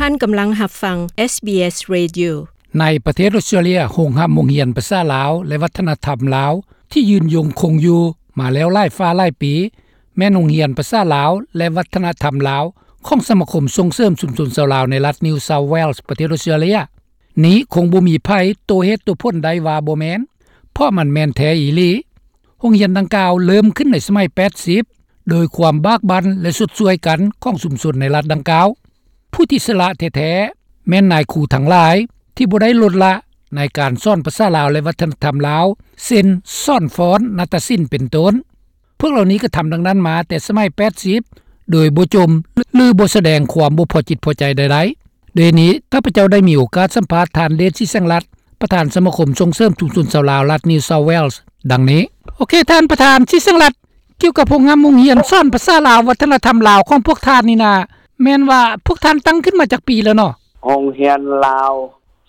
ທ່ານກຳລັງຮັບຟັງ ເອສບີເອສ Radio. ໃນປະເທດອົດສະຕຣາເລຍ, ໂຮງຮັບໂຮງຮຽນພາສາລາວ ແລະ ວັດທະນະທຳລາວ ທີ່ຍືນຍົງຄົງຢູ່ມາແລ້ວຫຼາຍຟ້າຫຼາຍປີ ແມ່ນໂຮງຮຽນພາສາລາວ ແລະ ວັດທະນະທຳລາວ ຂອງສະມາຄົມສົ່ງເສີມຊຸມຊົນຊາວລາວໃນລັດ New South Wales ປະເທດອົດສະຕຣາເລຍ. ນີ້ຄົງບໍ່ມີໃຜໂຕ້ເຫດໂຕ້ຜົນໄດ້ວ່າບໍ່ແມ່ນ, ເພາະມັນແມ່ນແທ້ອີ່ຫຼີ. ໂຮງຮຽນດັ່ງກ່າວເລີ່ມຂຶ້ນໃນສະໄໝແປດສິບ ໂດຍຄວາມບາກບັ່ນ ແລະ ຊົດຊ່ວຍກັນຂອງຊຸມຊົນໃນລັດດັ່ງກ່າວ. ຜູ້ທີ່ສະຫຼະແທ້ໆ ແມ່ນນາຍຄູທັງຫຼາຍທີ່ບໍ່ໄດ້ລົດລະໃນການສອນພາສາລາວ ແລະ ວັດທະນະທຳລາວ ເຊັ່ນ ສອນຟ້ອນ, ນາດຕະສິນ ເປັນຕົ້ນ. ພວກເຫຼົ່ານີ້ກໍທຳດັ່ງນັ້ນມາແຕ່ສະໄໝແປດສິບ ໂດຍບໍ່ຈົ່ມ ຫຼື ບໍ່ສະແດງຄວາມບໍ່ພໍຈິດພໍໃຈໃດໆ. ດ້ວຍນີ້, ຂ້າພະເຈົ້າໄດ້ມີໂອກາດສຳພາດທ່ານ ເດດ ສີແສງລັດ, ປະທານສະມາຄົມສົ່ງເສີມຊຸມຊົນຊາວລາວລັດ New South Wales ດັ່ງນີ້. ໂອເຄ, ທ່ານປະທານ ສີແສງລັດ, ກ່ຽວກັບໂຮງຮຽນ, ໂຮງຮຽນສອນພາສາລາວ, ວັດທະນະທຳລາວຂອງພວກທ່ານນີ້ນະ, ແມ່ນວ່າພວກທ່ານຕັ້ງຂຶ້ນມາຈັກປີແລ້ວເນາະ? ໂຮງຮຽນລາວ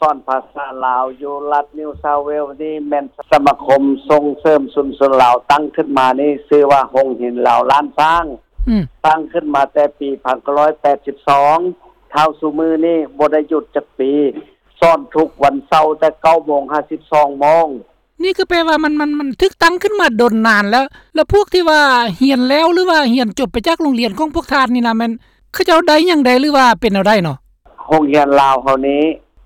ສອນພາສາລາວຢູ່ລັດ New South Wales ນີ້ແມ່ນສະມາຄົມສົ່ງເສີມຊຸມຊົນລາວຕັ້ງຂຶ້ນມານີ້ ຊື່ວ່າໂຮງຮຽນລາວລ້ານຊ້າງ. ອືມ. ຕັ້ງຂຶ້ນມາແຕ່ປີພັນເກົ້າຮ້ອຍແປດສິບສອງ ເທົ່າຊຸມື້ນີ້ບໍ່ໄດ້ຢຸດຈັກປີ, ສອນທຸກວັນເສົາແຕ່ເກົ້າໂມງຫາສິບສອງໂມງ. ນີ້ກໍແປວ່າມັນ, ມັນ, ມັນຖືກຕັ້ງຂຶ້ນມາດົນນານແລ້ວ. ແລ້ວພວກທີ່ວ່າຮຽນແລ້ວ ຫຼືວ່າຮຽນຈົບໄປຈາກໂຮງຮຽນຂອງພວກທ່ານນີ້ນະ, ແມ່ນເຂົາເຈົ້າໄດ້ຫຍັງແດ່ ຫຼືວ່າເປັນແນວໃດເນາະ? ໂຮງຮຽນລາວເຮົານີ້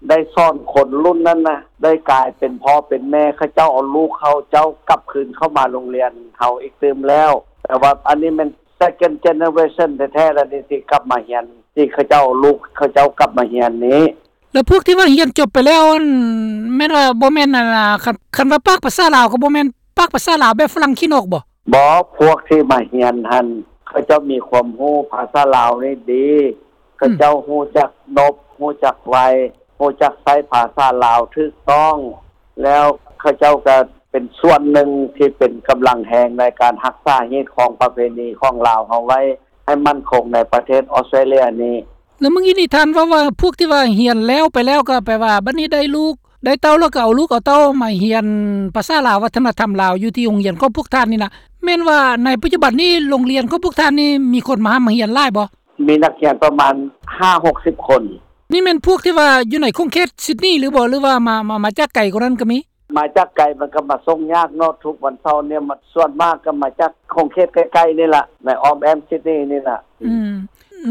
ໄດ້ສອນຄົນລຸ້ນນັ້ນນະ ໄດ້ກາຍເປັນພໍ່ເປັນແມ່, ເຂົາເຈົ້າເອົາລູກເຂົາເຈົ້າກັບຄືນເຂົ້າມາໂຮງຮຽນເຮົາອີກຕື່ມແລ້ວ. ແຕ່ວ່າອັນນີ້ແມ່ນ second generation ແທ້ໆ ແລ້ວນີ້ ທີ່ກັບມາຮຽນ, ທີ່ເຂົາເຈົ້າເອົາລູກເຂົາເຈົ້າກັບມາຮຽນນີ້. ແລ້ວພວກທີ່ວ່າຮຽນຈົບໄປແລ້ວ ອັນ ແມ່ນວ່າບໍ່ແມ່ນ ອັນ ຄັນ, ຄັນວ່າປາກພາສາລາວກໍບໍ່ແມ່ນປາກພາສາລາວແບບຝຣັ່ງຂີ້ນົກບໍ? ບໍ່, ພວກທີ່ມາຮຽນຫັ້ນ ເຂົາເຈົ້າມີຄວາມຮູ້ພາສາລາວນີ້ດີ, ເຂົາເຈົ້າ ອືມ ຮູ້ຈັກນົບ, ຮູ້ຈັກໄຫວ້, ຮູ້ຈັກໃຊ້ພາສາລາວຖືກຕ້ອງ, ແລ້ວເຂົາເຈົ້າກໍເປັນສ່ວນໜຶ່ງທີ່ເປັນກຳລັງແຮງໃນການຮັກສາຮີດຄອງປະເພນີຂອງລາວເຮົາໄວ້ ໃຫ້ໝັ້ນຄົງໃນປະເທດອອສເຕຣເລຍນີ້. ແລ້ວມື້ກີ້ນີ້ທ່ານເວົ້າວ່າ ພວກທີ່ວ່າຮຽນແລ້ວໄປແລ້ວ ກໍແປວ່າບັດນີ້ໄດ້ລູກໄດ້ເຕົ້າ ແລ້ວກໍເອົາລູກເອົາເຕົ້າມາຮຽນພາສາລາວ ວັດທະນະທຳລາວ ຢູ່ທີ່ໂຮງຮຽນຂອງພວກທ່ານນີ້ນະ, ແມ່ນວ່າໃນປັດຈຸບັນນີ້ ໂຮງຮຽນຂອງພວກທ່ານນີ້ ມີຄົນມາຮ່ຳມາຮຽນຫຼາຍບໍ່? ມີນັກຮຽນປະມານຫ້າຫົກສິບຄົນ. ນີ້ແມ່ນພວກທີ່ວ່າຢູ່ໃນຂົງເຂດຊິດນີຫຼືບໍ່ ຫຼືວ່າມາ, ມາ, ມາຈາກໄກກວ່ານັ້ນກໍມີ? ມາຈາກໄກມັນກໍມາສົ່ງຍາກເນາະ, ທຸກວັນເສົານີ້ ມັນສ່ວນມາກກໍມາຈາກຂົງເຂດໃກ້ໆນີ້ລະ, ໃນອ້ອມແອ້ມຊິດນີນີ້ລະ. ອືມ.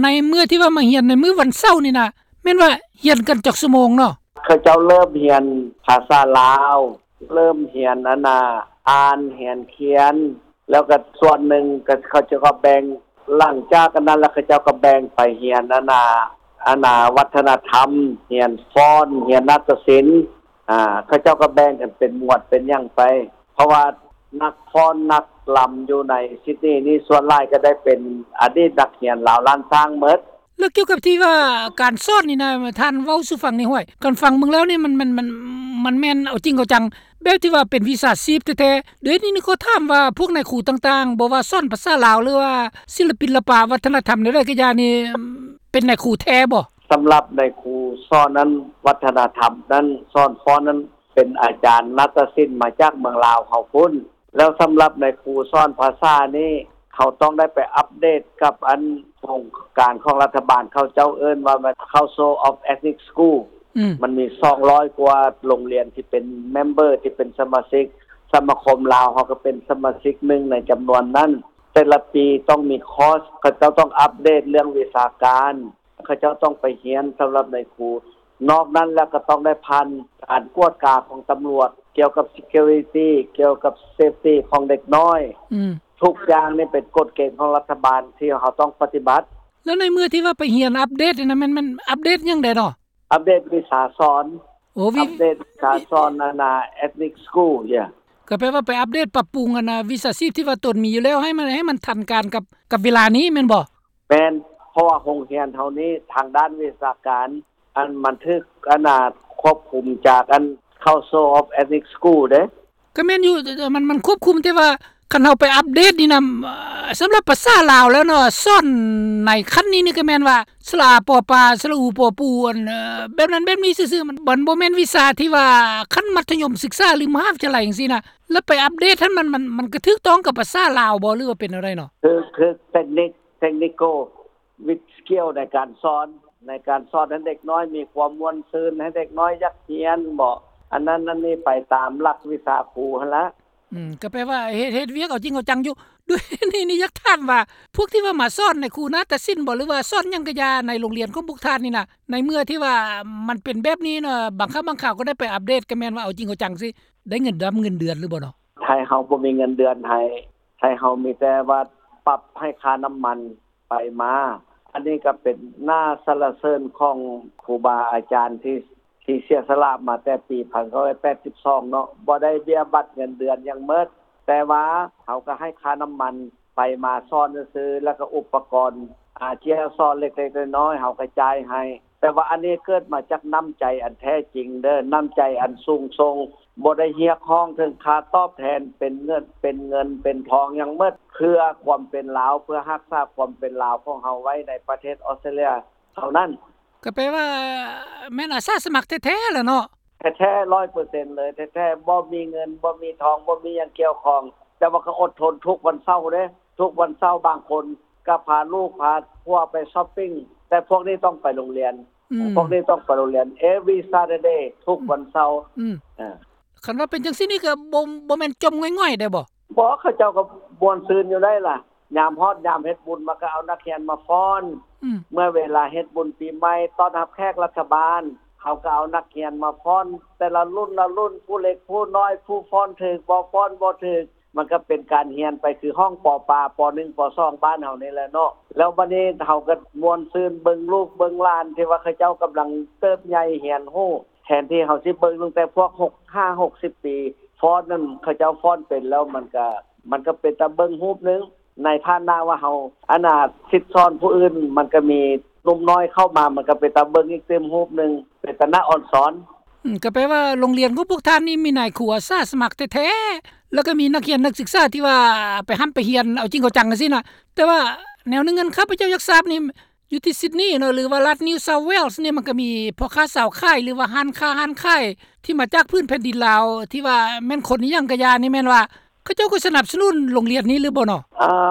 ໃນເມື່ອທີ່ວ່າມາຮຽນໃນມື້ວັນເສົານີ້ນະ, ແມ່ນວ່າຮຽນກັນຈັກຊົ່ວໂມງເນາະ? ເຂົາເຈົ້າເລີ່ມຮຽນພາສາລາວ, ເລີ່ມຮຽນ ອັນນ່າ ອ່ານ, ຮຽນຂຽນ, ແລ້ວກໍສ່ວນໜຶ່ງກໍເຂົາເຈົ້າກໍແບ່ງ, ຫຼັງຈາກອັນນັ້ນແລ້ວ ເຂົາເຈົ້າກໍແບ່ງໄປຮຽນ ອັນນ່າ ອັນນ່າ ວັດທະນະທຳ, ຮຽນຟ້ອນ, ຮຽນນາດຕະສິນ, ອ່າ ເຂົາເຈົ້າກໍແບ່ງກັນເປັນໝວດເປັນຫຍັງໄປ, ເພາະວ່ານັກຟ້ອນນັກລຳຢູ່ໃນຊິດນີນີ້ ສ່ວນຫຼາຍກໍໄດ້ເປັນອະດີດນັກຮຽນລາວລ້ານຊ້າງໝົດ. ແລ້ວກ່ຽວກັບທີ່ວ່າການສອນນີ້ນະ, ທ່ານເວົ້າສູ່ຟັງແດ່ຫ້ວຍ, ການຟັງເບິ່ງແລ້ວນີ້ ມັນ, ມັນ, ມັນ, ມັນແມ່ນເອົາຈິງເອົາຈັງ ແບບທີ່ວ່າເປັນວິຊາຊີບແທ້ໆ. ດຽວນີ້ນີ້ຂໍຖາມວ່າ ພວກນາຍຄູຕ່າງໆ, ບໍ່ວ່າສອນພາສາລາວ ຫຼືວ່າສິລະປິນລະປະ ວັດທະນະທຳແນວໃດກໍຢ່ານີ້, ເປັນນາຍຄູແທ້ບໍ່? ສຳລັບນາຍຄູສອນນັ້ນ, ວັດທະນະທຳນັ້ນ, ສອນຟ້ອນນັ້ນ, ເປັນອາຈານນາດຕະສິນມາຈາກເມືອງລາວເຮົາພຸ້ນ. ແລ້ວສຳລັບນາຍຄູສອນພາສານີ້, ເຮົາຕ້ອງໄດ້ໄປອັບເດດກັບອັນໂຄງການຂອງລັດຖະບານ, ເຂົາເຈົ້າເອີ້ນວ່າ Council of Ethnic School. ອືມ. ມັນມີສອງຮ້ອຍກວ່າໂຮງຮຽນທີ່ເປັນເມັມເບີ, ທີ່ເປັນສະມາຊິກ, ສະມາຄົມລາວເຮົາກໍເປັນສະມາຊິກໜຶ່ງໃນຈຳນວນນັ້ນ. ແຕ່ລະປີຕ້ອງມີຄອສ, ເຂົາເຈົ້າຕ້ອງອັບເດດເລື່ອງວິຊາການ, ເຂົາເຈົ້າຕ້ອງໄປຮຽນສຳລັບນາຍຄູ. ນອກນັ້ນແລ້ວກໍຕ້ອງໄດ້ຜ່ານການກວດກາຂອງຕຳຫຼວດ ກ່ຽວກັບ security, ກ່ຽວກັບ safety ຂອງເດັກນ້ອຍ. ອືມ. ທຸກຢ່າງນີ້ເປັນກົດເກນຂອງລັດຖະບານທີ່ເຮົາຕ້ອງປະຕິບັດ. ແລ້ວໃນເມື່ອທີ່ວ່າໄປຮຽນອັບເດດນີ້ນະ, ແມ່ນ, ແມ່ນອັບເດດຫຍັງແດ່ເນາະ? ອັບເດດວິຊາສອນ. ໂອ້, ວິ, ອັບເດດວິຊາສອນ ອັນນ່າ Ethnic School, yeah. ກໍແປວ່າໄປອັບເດດປັບປຸງ ອັນນ່າ ວິຊາຊີບທີ່ວ່າຕົນມີຢູ່ແລ້ວ ໃຫ້ມັນ, ໃຫ້ມັນທັນການກັບ, ກັບເວລານີ້ແມ່ນບໍ່? ແມ່ນ, ເພາະວ່າໂຮງຮຽນເຮົານີ້ທາງດ້ານວິຊາການ ອັນມັນຖືກ ອັນນ່າ ຄວບຄຸມຈາກອັນ Council of Ethnic School ເດ້. ກໍແມ່ນຢູ່, ມັນ, ມັນຄວບຄຸມ, ແຕ່ວ່າຄັນເຮົາໄປອັບເດດນີ້ນະ, ສຳລັບພາສາລາວແລ້ວເນາະ, ສອນໃນຂັ້ນນີ້ນີ້ກໍແມ່ນວ່າ ສະຫຼະອາ ປໍປາ, ສະຫຼະອູ ປໍປູ, ອັນ, ແບບນັ້ນແບບນີ້ຊື່ໆ, ມັນ, ມັນບໍ່ແມ່ນວິຊາທີ່ວ່າຂັ້ນມັດທະຍົມສຶກສາ ຫຼື ມະຫາວິທະຍາໄລຈັ່ງຊີ້ນະ. ແລ້ວໄປອັບເດດຫັ້ນ ມັນ, ມັນ, ມັນກໍຖືກຕ້ອງກັບພາສາລາວບໍ່ ຫຼືວ່າເປັນແນວໃດເນາະ? ຄື, ຄື technic-, technical with skill ໃນການສອນ. ໃນການສອນໃຫ້ເດັກນ້ອຍມີຄວາມມ່ວນຊື່ນ ໃຫ້ເດັກນ້ອຍຢາກຮຽນເບາະ ອັນນັ້ນອັນນີ້ໄປຕາມຫຼັກວິຊາຄູຫັ້ນລະ. ອືມ ກໍແປວ່າເຮັດ ເຮັດວຽກເອົາຈິງເອົາຈັງຢູ່. ດ້ວຍນີ້ ນີ້ຢາກຖາມວ່າ ພວກທີ່ວ່າມາສອນໃນຄູນາຕະສິນບໍ ຫຼືວ່າສອນຫຍັງກະຢ່າ ໃນໂຮງຮຽນຂອງພວກທ່ານນີ້ນະ ໃນເມື່ອທີ່ວ່າມັນເປັນແບບນີ້ເນາະ ບາງຄັ້ງບາງຄາວກໍໄດ້ໄປອັບເດດ ກໍແມ່ນວ່າເອົາຈິງເອົາຈັງຊິ ໄດ້ເງິນດຳເງິນເດືອນຫຼືບໍ່ເນາະ? ໄທເຮົາບໍ່ມີເງິນເດືອນໃຫ້ ໄທເຮົາມີແຕ່ວ່າປັບໃຫ້ຄ່ານ້ຳມັນໄປມາ. ອັນນີ້ກໍເປັນໜ້າສັນລະເສີນຂອງຄູບາອາຈານທີ່ ທີ່ເສຍສະຫຼະມາແຕ່ປີພັນເກົ້າຮ້ອຍແປດສິບສອງເນາະ ບໍ່ໄດ້ເບ້ຍບັດເງິນເດືອນຫຍັງໝົດ ແຕ່ວ່າເຮົາກໍໃຫ້ຄ່ານ້ຳມັນໄປມາສອນຊື່ໆ ແລ້ວກໍອຸປະກອນ ອາ ທີ່ເຮົາສອນເລັກໆນ້ອຍໆ ເຮົາກໍຈ່າຍໃຫ້. ແຕ່ວ່າອັນນີ້ເກີດມາຈາກນ້ຳໃຈອັນແທ້ຈິງເດີ ນ້ຳໃຈອັນສູງສົ່ງ ບໍ່ໄດ້ຮຽກຮ້ອງເຖິງຄ່າຕອບແທນເປັນເງິນ ເປັນເງິນເປັນທອງຫຍັງໝົດ ເພື່ອຄວາມເປັນລາວ ເພື່ອຮັກສາຄວາມເປັນລາວຂອງເຮົາໄວ້ໃນປະເທດອອສເຕຣເລຍເທົ່ານັ້ນ. ກໍແປວ່າແມ່ນອາສາສະໝັກແທ້ໆລະເນາະ? ແທ້ໆ ຮ້ອຍເປີເຊັນເລີຍ ແທ້ໆ ບໍ່ມີເງິນ ບໍ່ມີທອງ ບໍ່ມີຫຍັງກ່ຽວຂ້ອງ ແຕ່ວ່າກໍອົດທົນທຸກວັນເສົາເດ້ ທຸກວັນເສົາບາງຄົນກໍພາລູກພາຜົວໄປຊັອບປິງ ແຕ່ພວກນີ້ຕ້ອງໄປໂຮງຮຽນ ອືມ ພວກນີ້ຕ້ອງໄປໂຮງຮຽນ every Saturday ທຸກວັນເສົາ. ອືມ ເອີ ຄັນວ່າເປັນຈັ່ງຊີ້ນີ້ກໍບໍ່ ບໍ່ແມ່ນຈົ່ມງ່ອຍໆໄດ້ບໍ່? ບໍ່ ເຂົາເຈົ້າກໍມ່ວນຊື່ນຢູ່ໄດ໋ລະ ຍາມຮອດຍາມເຮັດບຸນ ມັນກໍເອົານັກຮຽນມາຟ້ອນ ອືມ ເມື່ອເວລາເຮັດບຸນປີໃໝ່ ຕ້ອນຮັບແຂກລັດຖະບານ ເຮົາກໍເອົານັກຮຽນມາຟ້ອນ ແຕ່ລະລຸ້ນລະລຸ້ນ ຜູ້ເລັກຜູ້ນ້ອຍ ຜູ້ຟ້ອນຖືກບໍ່ຟ້ອນບໍ່ຖືກ ມັນກໍເປັນການຮຽນໄປຄືຫ້ອງ ປ ປ ໜຶ່ງ ປ ສອງ ບ້ານເຮົານີ້ແຫຼະເນາະ. ແລ້ວບັດນີ້ເຮົາກໍມ່ວນຊື່ນເບິ່ງລູກເບິ່ງຫຼານ ທີ່ວ່າເຂົາເຈົ້າກຳລັງເຕີບໃຫຍ່ຮຽນຮູ້ ແທນທີ່ເຮົາຊິເບິ່ງຕັ້ງແຕ່ພວກຫົກ ຫ້າ ຫົກສິບປີ ຟ້ອນນັ້ນ ເຂົາເຈົ້າຟ້ອນເປັນແລ້ວ ມັນກະ ມັນກະເປັນຕາເບິ່ງຮູບໜຶ່ງ ໃນຖານະວ່າເຮົາ ອັນນ່າ ສິດສອນຜູ້ອື່ນ ມັນກະມີໜຸ່ມນ້ອຍເຂົ້າມາ ມັນກະເປັນຕາເບິ່ງອີກຕື່ມຮູບໜຶ່ງ ເປັນຕາໜ້າອອນຊອນ. ອືມ ກໍແປວ່າໂຮງຮຽນຂອງພວກທ່ານນີ້ມີນາຍຄູອາສາສະໝັກແທ້ໆ ແລ້ວກໍມີນັກຮຽນນັກສຶກສາທີ່ວ່າໄປຮ່ຳໄປຮຽນເອົາຈິງເອົາຈັງຈັ່ງຊີ້ນະ. ແຕ່ວ່າແນວໜຶ່ງອັນຂ້າພະເຈົ້າຢາກຊາບນີ້ ຢູ່ທີ່ຊິດນີເນາະ ຫຼືວ່າລັດ New South Wales ນີ້ ມັນກໍມີພໍ່ຄ້າຊາວຂາຍ ຫຼືວ່າຮ້ານຄ້າຮ້ານຂາຍ ທີ່ມາຈາກພື້ນແຜ່ນດິນລາວ ທີ່ວ່າແມ່ນຄົນອີ່ຫຍັງກະຢ່ານີ້ ແມ່ນວ່າເຂົາເຈົ້າກໍສະໜັບສະໜູນໂຮງຮຽນນີ້ຫຼືບໍ່ເນາະ?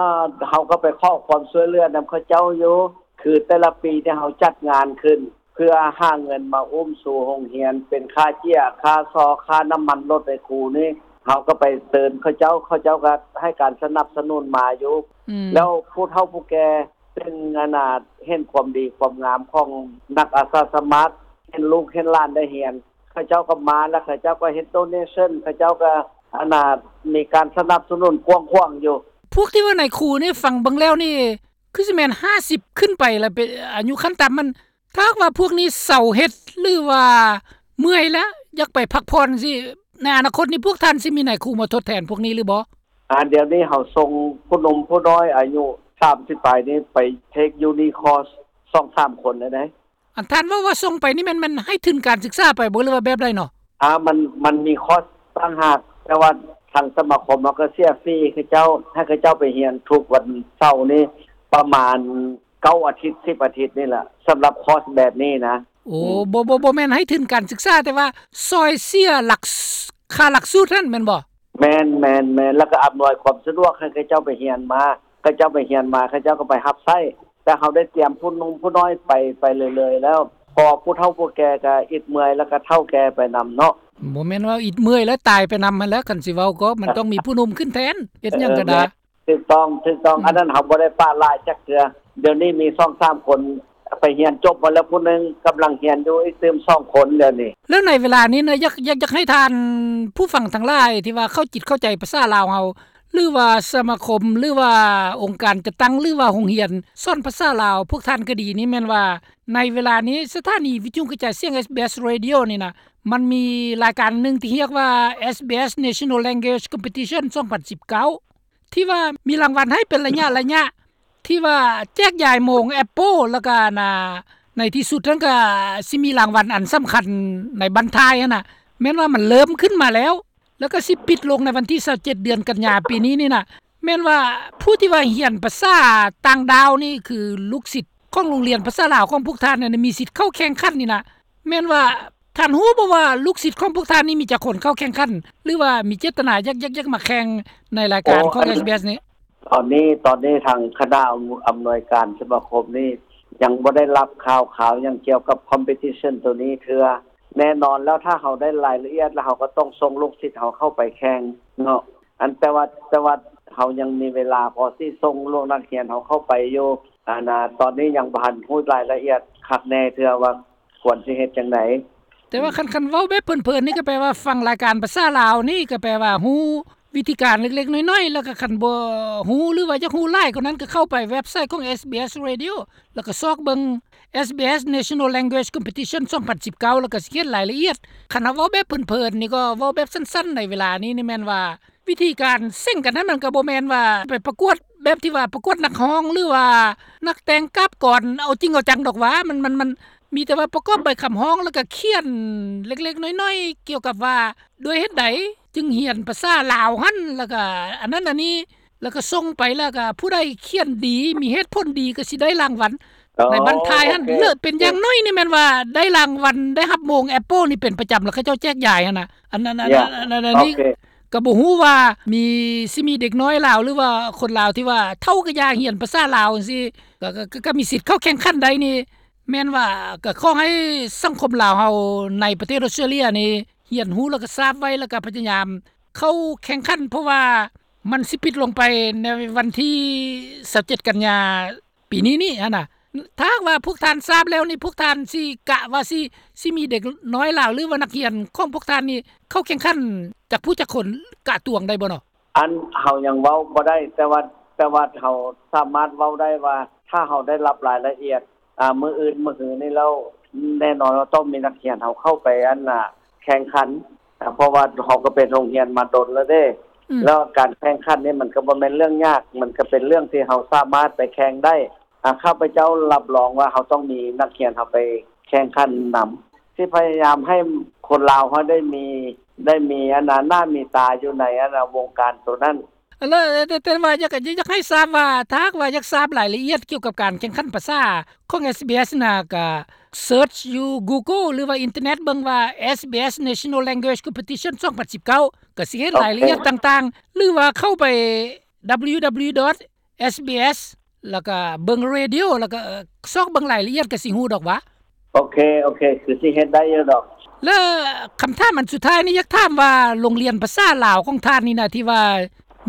ເຮົາກໍໄປຂໍຄວາມຊ່ວຍເຫຼືອນຳເຂົາເຈົ້າຢູ່ ຄືແຕ່ລະປີທີ່ເຮົາຈັດງານຂຶ້ນ ເພື່ອຫາເງິນມາອຸ້ມຊູໂຮງຮຽນ ເປັນຄ່າເຈ້ຍ ຄ່າຊໍ ຄ່ານ້ຳມັນລົດໃຫ້ຄູນີ້ ເຮົາກໍໄປເຊີນເຂົາເຈົ້າ ເຂົາເຈົ້າກໍໃຫ້ການສະໜັບສະໜູນມາຢູ່. ອືມ ແລ້ວຜູ້ເຖົ້າຜູ້ແກ່ ເຊິ່ງອັນນ່າເຫັນຄວາມດີຄວາມງາມຂອງນັກອາສາສະໝັກ ເຫັນລູກເຫັນຫຼານໄດ້ຮຽນ ເຂົາເຈົ້າກໍມາ ແລ້ວເຂົາເຈົ້າກໍເຮັດໂດເນຊັນ ເຂົາເຈົ້າກໍອັນນ່າມີການສະໜັບສະໜູນກວ້າງຂວາງຢູ່. ພວກທີ່ວ່ານາຍຄູນີ້ ຟັງເບິ່ງແລ້ວນີ້ ຄືຊິແມ່ນຫ້າສິບຂຶ້ນໄປລະ ເປັນອາຍຸຂັ້ນຕ່ຳມັນ ຖ້າຫາກວ່າພວກນີ້ເຊົາເຮັດ ຫຼືວ່າເມື່ອຍແລ້ວ ຢາກໄປພັກຜ່ອນຈັ່ງຊີ້ ໃນອະນາຄົດນີ້ ພວກທ່ານຊິມີນາຍຄູມາທົດແທນພວກນີ້ຫຼືບໍ່? ອາ ດຽວນີ້ເຮົາສົ່ງຜູ້ໜຸ່ມຜູ້ນ້ອຍອາຍຸສາມສິບປາຍນີ້ໄປເທກຢູນີຄອສສອງສາມຄົນແລ້ວເດ້. ອັນທ່ານເວົ້າວ່າສົ່ງໄປນີ້ແມ່ນ ແມ່ນໃຫ້ທຶນການສຶກສາໄປບໍ່ ຫຼືວ່າແບບໃດເນາະ? ອາ ມັນ ມັນມີຄອສຕ່າງຫາກ ແຕ່ວ່າທາງສະມາຄົມເຮົາກໍເສຍຟຣີໃຫ້ເຂົາເຈົ້າ ໃຫ້ເຂົາເຈົ້າໄປຮຽນທຸກວັນເສົານີ້ ປະມານເກົ້າອາທິດ ສິບອາທິດນີ້ລະ ສຳລັບຄອສແບບນີ້ນະ. ໂອ້ ອືມ ບໍ່ ບໍ່ ບໍ່ແມ່ນໃຫ້ທຶນການສຶກສາ ແຕ່ວ່າຊ່ອຍເສຍຫຼັກ ຄ່າຫຼັກສູດຫັ້ນແມ່ນບໍ່? ແມ່ນ ແມ່ນ ແມ່ນ ແລ້ວກໍອຳນວຍຄວາມສະດວກໃຫ້ເຂົາເຈົ້າໄປຮຽນມາ ເຂົາເຈົ້າໄປຮຽນມາ ເຂົາເຈົ້າກໍໄປຮັບໃຊ້ ແຕ່ເຮົາໄດ້ຕຽມຜູ້ໜຸ່ມຜູ້ນ້ອຍໄປ ໄປເລື້ອຍໆແລ້ວ ເພາະຜູ້ເຖົ້າຜູ້ແກ່ກໍອິດເມື່ອຍ ແລ້ວກໍເຖົ້າແກ່ໄປນຳເນາະ. ບໍ່ແມ່ນວ່າອິດເມື່ອຍແລ້ວຕາຍໄປນຳຫັ້ນແຫຼະ ຄັນຊິເວົ້າກໍມັນຕ້ອງມີຜູ້ໜຸ່ມຂຶ້ນແທນ ເຮັດຫຍັງກໍໄດ້. ຖືກຕ້ອງ ຖືກຕ້ອງ ອືມ ອັນນັ້ນເຮົາບໍ່ໄດ້ປະລະຈັກເທື່ອ. ດຽວນີ້ມີສອງສາມຄົນໄປຮຽນຈົບມາແລ້ວຜູ້ໜຶ່ງ ກຳລັງຮຽນຢູ່ອີກຕື່ມສອງຄົນດຽວນີ້. ແລ້ວໃນເວລານີ້ນະ ຢາກ ຢາກ ຢາກໃຫ້ທ່ານຜູ້ຟັງທັງຫຼາຍທີ່ວ່າເຂົ້າຈິດເຂົ້າໃຈພາສາລາວເຮົາ ຫຼືວ່າສະມາຄົມ ຫຼືວ່າອົງການຈັດຕັ້ງ ຫຼືວ່າໂຮງຮຽນສອນພາສາລາວ ພວກທ່ານກໍດີນີ້ ແມ່ນວ່າໃນເວລານີ້ສະຖານີວິທະຍຸກະຈາຍສຽງ ເອສບີເອສ Radio ນີ້ນະ ມັນມີລາຍການໜຶ່ງທີ່ຮຽກວ່າ SBS National Language Competition ສອງພັນສິບເກົ້າ ທີ່ວ່າມີລາງວັນໃຫ້ເປັນໄລຍະໆ ທີ່ວ່າແຈກຢາຍໂມງ Apple ແລ້ວກໍອັນນ່າ ໃນທີ່ສຸດນັ້ນກໍຊິມີລາງວັນອັນສຳຄັນໃນບັ້ນທ້າຍຫັ້ນນະ ແມ່ນວ່າມັນເລີ່ມຂຶ້ນມາແລ້ວ ແລ້ວກໍຊິປິດລົງໃນວັນທີຊາວເຈັດ ເດືອນກັນຍາປີນີ້ນີ້ນະ ແມ່ນວ່າຜູ້ທີ່ວ່າຮຽນພາສາຕ່າງດ້າວນີ້ ຄືລູກສິດຂອງໂຮງຮຽນພາສາລາວຂອງພວກທ່ານນັ້ນ ມີສິດເຂົ້າແຂ່ງຂັນນີ້ນະ ແມ່ນວ່າທ່ານຮູ້ບໍ່ວ່າລູກສິດຂອງພວກທ່ານນີ້ມີຈັກຄົນເຂົ້າແຂ່ງຂັນ ຫຼືວ່າມີເຈດຕະນາຢາກ ຢາກ ຢາກມາແຂ່ງໃນລາຍການຂອງ SBS ນີ້? ຕອນນີ້ ຕອນນີ້ທາງຄະນະອຳ ອຳນວຍການສະມາຄົມນີ້ ຍັງບໍ່ໄດ້ຮັບຂ່າວຄາວຫຍັງກ່ຽວກັບ competition ໂຕນີ້ເທື່ອ. ແນ່ນອນແລ້ວ ຖ້າເຮົາໄດ້ລາຍລະອຽດແລ້ວ ເຮົາກໍຕ້ອງສົ່ງລູກສິດເຮົາເຂົ້າໄປແຂ່ງເນາະ. ອັນ ແຕ່ວ່າ ແຕ່ວ່າເຮົາຍັງມີເວລາພໍຊິສົ່ງລູກນັກຮຽນເຮົາເຂົ້າໄປຢູ່. ອັນນ່າ ຕອນນີ້ຍັງບໍ່ທັນຮູ້ລາຍລະອຽດຄັກແນ່ເທື່ອວ່າຄວນຊິເຮັດຈັ່ງໃດ. ແຕ່ວ່າຄັນ ຄັນເວົ້າແບບເພີນໆນີ້ ກໍແປວ່າຟັງລາຍການພາສາລາວນີ້ ກໍແປວ່າຮູ້ວິທີການເລັກໆນ້ອຍໆ ແລ້ວກໍຄັນບໍ່ຮູ້ ຫຼືວ່າຢາກຮູ້ຫຼາຍກວ່ານັ້ນ ກໍເຂົ້າໄປເວັບໄຊຂອງ SBS Radio ແລ້ວກໍຊອກເບິ່ງ SBS National Language Competition ສອງພັນສິບເກົ້າ ແລ້ວກໍຊິເຫັນລາຍລະອຽດ. ຄັນເຮົາເວົ້າແບບເພີນໆນີ້ ກໍເວົ້າແບບສັ້ນໆໃນເວລານີ້ນີ້ແມ່ນວ່າ ວິທີການເສັງກັນຫັ້ນ ມັນກໍບໍ່ແມ່ນວ່າໄປປະກວດແບບທີ່ວ່າປະກວດນັກຮ້ອງ ຫຼືວ່ານັກແຕ່ງກາບກອນເອົາຈິງເອົາຈັງດອກຫວາ. ມັນ ມັນ ມັນມີແຕ່ວ່າປະກອບໃບຄຳຮ້ອງ ແລ້ວກໍຂຽນເລັກໆນ້ອຍໆ ກ່ຽວກັບວ່າດ້ວຍເຫດໃດຈຶ່ງຮຽນພາສາລາວຫັ້ນ ແລ້ວກໍອັນນັ້ນອັນນີ້ ແລ້ວກໍສົ່ງໄປ ແລ້ວກໍຜູ້ໃດຂຽນດີ ມີເຫດຜົນດີ ກໍຊິໄດ້ລາງວັນ. ອໍ ໃນບັ້ນທ້າຍຫັ້ນ ໂອເຄ ເລີກເປັນຢ່າງໜ້ອຍນີ້ແມ່ນວ່າໄດ້ລາງວັນ ໄດ້ຮັບໂມງແອັບເປິ້ນນີ້ເປັນປະຈຳ ແລ້ວເຂົາເຈົ້າແຈກຢາຍຫັ້ນນະ. ອັນນັ້ນ ອັນ ເຢ ອັນ ອັນ ອັນ ອັນນີ້ ໂອເຄ ກໍບໍ່ຮູ້ວ່າມີ ຊິມີເດັກນ້ອຍລາວ ຫຼືວ່າຄົນລາວທີ່ວ່າເຖົ້າກະຢ່າຮຽນພາສາລາວຈັ່ງຊີ້ ກໍ ກໍ ກໍ ກໍມີສິດເຂົ້າແຂ່ງຂັນໄດ້ນີ້. ແມ່ນວ່າກໍຂໍໃຫ້ສັງຄົມລາວເຮົາໃນປະເທດອອສເຕຣເລຍນີ້ ຮຽນຮູ້ແລ້ວກໍຊາບໄວ້ ແລ້ວກໍພະຍາຍາມເຂົ້າແຂ່ງຂັນ ເພາະວ່າມັນຊິປິດລົງໄປໃນວັນທີຊາວເຈັດກັນຍາ ປີນີ້ນີ້ຫັ້ນນະ. ຖ້າຫາກວ່າພວກທ່ານຊາບແລ້ວນີ້ ພວກທ່ານຊິກະວ່າຊິ ຊິມີເດັກນ້ອຍລາວ ຫຼືວ່ານັກຮຽນຂອງພວກທ່ານນີ້ເຂົ້າແຂ່ງຂັນຈັກຜູ້ຈັກຄົນ ກະຕວງໄດ້ບໍ່ເນາະ? ອັນ ເຮົາຍັງເວົ້າບໍ່ໄດ້ ແຕ່ວ່າ ແຕ່ວ່າເຮົາສາມາດເວົ້າໄດ້ວ່າ ຖ້າເຮົາໄດ້ຮັບລາຍລະອຽດ ອາ ມື້ອື່ນມື້ຮືນີ້ແລ້ວ ແນ່ນອນວ່າຕ້ອງມີນັກຮຽນເຮົາເຂົ້າໄປ ອັນນ່າ ແຂ່ງຂັນ ອາ ເພາະວ່າເຮົາກໍເປັນໂຮງຮຽນມາດົນແລ້ວເດ້ ອືມ ແລ້ວການແຂ່ງຂັນນີ້ມັນກໍບໍ່ແມ່ນເລື່ອງຍາກ ມັນກໍເປັນເລື່ອງທີ່ເຮົາສາມາດໄປແຂ່ງໄດ້. ອາ ຂ້າພະເຈົ້າຮັບຮອງວ່າເຮົາຕ້ອງມີນັກຮຽນເຮົາໄປແຂ່ງຂັນນຳ ຊິພະຍາຍາມໃຫ້ຄົນລາວເຮົາໄດ້ມີ ໄດ້ມີອັນນ່າ ໜ້າມີຕາຢູ່ໃນອັນນ່າ ວົງການໂຕນັ້ນ. ແລ້ວ ແຕ່ ແຕ່ວ່າຢາກ ຢາກ ຢາກໃຫ້ຊາບວ່າ ຖ້າຫາກວ່າຢາກຊາບລາຍລະອຽດກ່ຽວກັບການແຂ່ງຂັນພາສາຂອງ SBS ນະ ກະເສີດຢູ່ Google ຫຼືວ່າອິນເຕີເນັດເບິ່ງວ່າ SBS National Language Competition ສອງພັນສິບເກົ້າ ກະຊິເຫັນລາຍລະອຽດຕ່າງໆ ຫຼືວ່າເຂົ້າໄປ www SBS ແລ້ວກະເບິ່ງ Radio ແລ້ວກະຊອກເບິ່ງລາຍລະອຽດກະຊິຮູ້ດອກຫວາ. ໂອເຄ ໂອເຄ ຄືຊິເຮັດໄດ້ຢູ່ດອກ. ແລ້ວຄຳຖາມອັນສຸດທ້າຍນີ້ ຢາກຖາມວ່າ ໂຮງຮຽນພາສາລາວຂອງທ່ານນີ້ນະ ທີ່ວ່າ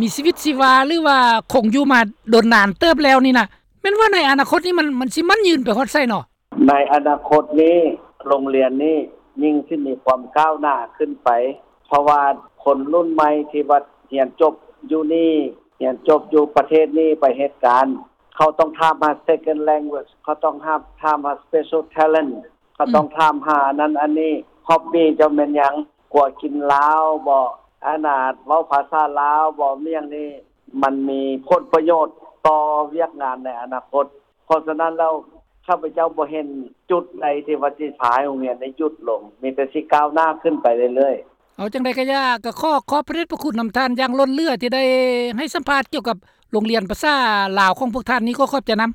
ມີຊີວິດຊີວາ ຫຼືວ່າຄົງຢູ່ມາດົນນານເຕີບແລ້ວນີ້ນະ ແມ່ນວ່າໃນອະນາຄົດນີ້ ມັນ ມັນຊິໝັ້ນຍືນໄປຮອດໃສເນາະ? ໃນອະນາຄົດນີ້ ໂຮງຮຽນນີ້ຍິ່ງຊິມີຄວາມກ້າວໜ້າຂຶ້ນໄປ ເພາະວ່າຄົນລຸ້ນໃໝ່ທີ່ວ່າຮຽນຈົບຢູ່ນີ້ ຮຽນຈົບຢູ່ປະເທດນີ້ໄປເຮັດການ ເຂົາຕ້ອງຖາມຫາ second language ເຂົາຕ້ອງຖາມ ຖາມຫາ special talent ເຂົາຕ້ອງ ອືມ ຖາມຫາອັນນັ້ນອັນນີ້ hobby ເຈົ້າແມ່ນຫຍັງ ກົວກິນລາວບໍ ອັນນ່າ ເວົ້າພາສາລາວບໍ ມີຫຍັງນີ້ ມັນມີຜົນປະໂຫຍດຕໍ່ວຽກງານໃນອະນາຄົດ. ເພາະສະນັ້ນແລ້ວ ຂ້າພະເຈົ້າບໍ່ເຫັນຈຸດໃດທີ່ວ່າຊິພາໃຫ້ໂຮງຮຽນໄດ້ຢຸດລົງ ມີແຕ່ຊິກ້າວໜ້າຂຶ້ນໄປເລື້ອຍໆ. ເອົາ ຈັ່ງໃດກະຢ່າ ກະຂໍຂອບພະເດດພະຄຸນນຳທ່ານຢ່າງລົ້ນເຫຼືອ ທີ່ໄດ້ໃຫ້ສຳພາດກ່ຽວກັບໂຮງຮຽນພາສາລາວຂອງພວກທ່ານນີ້ ຂໍຂອບໃຈນຳ.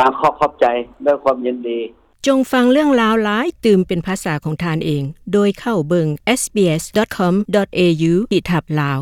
ອາ ຂໍຂອບໃຈ ດ້ວຍຄວາມຍິນດີ. ຈົ່ງຟັງເລື່ອງລາວຫຼາຍຕື່ມເປັນພາສາຂອງທ່ານເອງ ໂດຍເຂົ້າເບິ່ງ SBS.com.au ຂີດທັບ Lao.